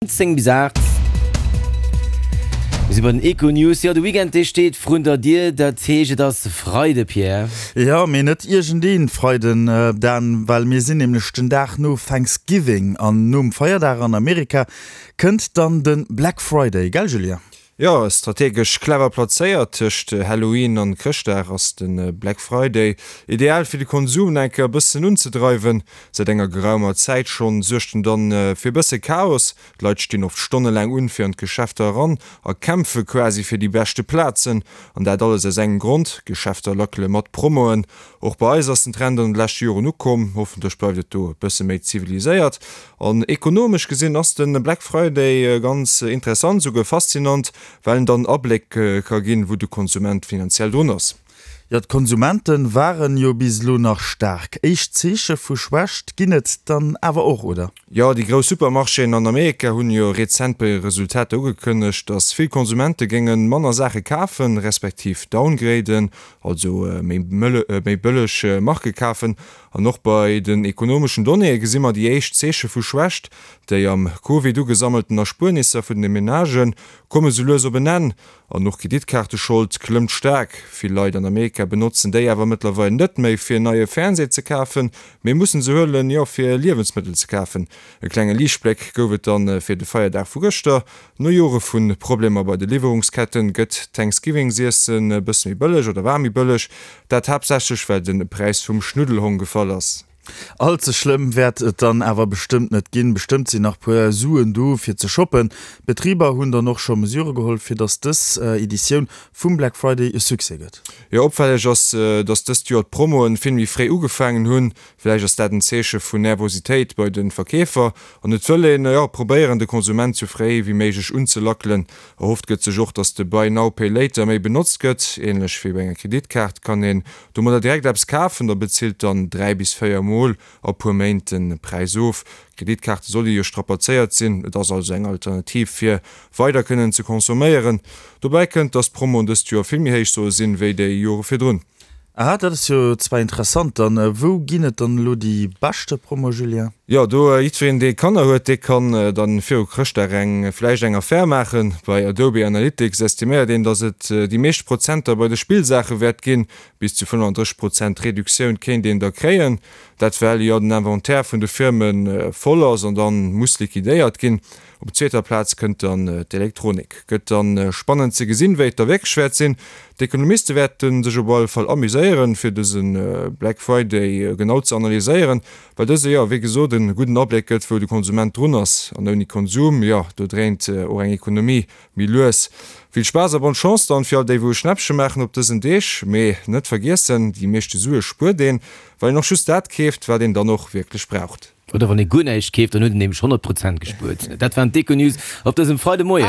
10 bis 8. Mir si bei den Econews. Jo, de Weekend, dee steet vrun der Dier. Dat heescht, et ass Freide, Pierre. Jo, mee net iergendee Freiden, Dan, well mir sinn nämlech den Dag no Thanksgiving an nom Feierdag an Amerika kënnt dann de Black Friday, gell Julien? Jo, strategesch clever plazéiert tëscht Halloween an Chrëschtdag ass de Black Friday ideal fir de Konsum nach eng Kéier e bëssen unzedreiwen. Säit enger geraumer Zäit schonn suergt en dann fir e bësse Chaos. D'Leit stinn oft stonnelaang un fir an d'Geschäfter eran a kämpfe quasi fir déi beschte Plazen. An dat alles aus engem Grond, D'Geschäfter lackele mat Promoen. Och bei eis ass den Trend an de leschte Joren ukomm. Hoffentlech bleift et do e bësse méi ziviliséiert. An ekonomesch gesinn ass de Black Friday ganz interessant, esouguer faszinant, well en dann Abléck ka ginn, wou de Konsument finanziell drun ass. Jo, d'Konsumente waren jo bis elo nach staark. Éischt Zeeche vu Schwächt ginn et dann awer och, oder? Jo, déi grouss Supermarchéen an Amerika hunn jo rezent bei hire Resultater ugekënnegt, datt vill Konsumente géinge manner Saache kafen, respektiv downgraden, also méi bëlleg Marke kafen. An och bei den ekonomeschen Donnéeë gesi mer déi éischt Zeeche vu Schwächt. Déi am Covid ugesammelten Erspuernisser vun de Menagë komme sou lues op en Enn. An och d'Kreditkaarteschold klëmmt staark. Vill Leit an Amerika benotzen déi awer mëttlerweil net méi fir en neie Fernseh ze kafen, mee mussen se huelen, jo fir Liewensmëttel ze kafen. E klenge Liichtbléck gouf et dann fir de Feierdag vu gëschter. No Jore vu Problemer bei de Liwwerungsketten gëtt d'Thanksgivingsiessen e bësse méi bëlleg oder war méi bëlleg. Dat haaptsächlech well de Präis vum Schnuddelhong gefall ass. All ze schlëmm wäert et dann awer bestëmmt net ginn. Bestëmmt sinn nach puer Suen do fir ze shoppen. D'Betriber hunn dann och scho Mesure geholl fir datt dës Editioun vum Black Friday e Succès gëtt. Jo, opfälleg ass, datt dëst Joer d'Promoen vill méi fréi ugefaangen hunn. Vläicht ass dat en Zeeche vun Nervositéit bei de Verkeefer an et wëll een, jo, probéieren de Konsument sou fréi wéi méiglech unzelackelen. Erhofft gëtt sech och, datt de Buy now, pay later méi benotzt gëtt. Ähnlech wéi bei enger Kreditkaart kann een domadder direkt eppes kafen, da bezilt dann 3 bis 4 mol a puer Méint de Präis of. D'Kreditkaarte solle jo strapazéiert sinn, et ass also eng Alternativ fir weider kënnen ze consomméieren. Dobäi kënnt, datt d'Promoen dëst Joer vill méi héich solle sinn, wéi déi Jore virdrun. Aha, dat ass jo zwar interessant. Dann wou ginn et dann elo déi beschte Promo, Julien? Jo, do jiddwereen dee Kanner huet, dee kann dann viru Chrëschtdag eng vläicht eng Affär maachen. Bei Adobe Analytics estiméiert een, datt et déi meescht Prozenter bei de Spillsaache wäert ginn. Bis zu 35 Prozent Reduktioun kéint een da kréien. Dat well jo den Inventaire vun de Firme voll ass an dann muss liquidéiert ginn. Op zweeter Plaz kënnt dann d'Elektronik. Gëtt dann spannend ze gesinn, wéi et da wierklech wäert sinn. D'Ekonomiste wäerte sech op alle Fall amuséieren, fir dëse Black Friday genau ze analyséieren, well dëse jo, wéi gesot, e gudden Abléck gëtt, wou de Konsument drun ass. An ouni Konsum, jo, do dréint och eng Ekonomie méi lues. Vill Spaass a bonne Chance dann fir all déi, wou e Schnäppche maachen op dësen Deeg. Mee net vergiessen, déi meeschte Sue spuert een, well een och just dat keeft, wat een dann och wierklech braucht. Oder wann ee guer näischt keeft, dann huet en nämlech 100 Prozent gespuert. Dat waren d'Econews op dësem Freidemoien.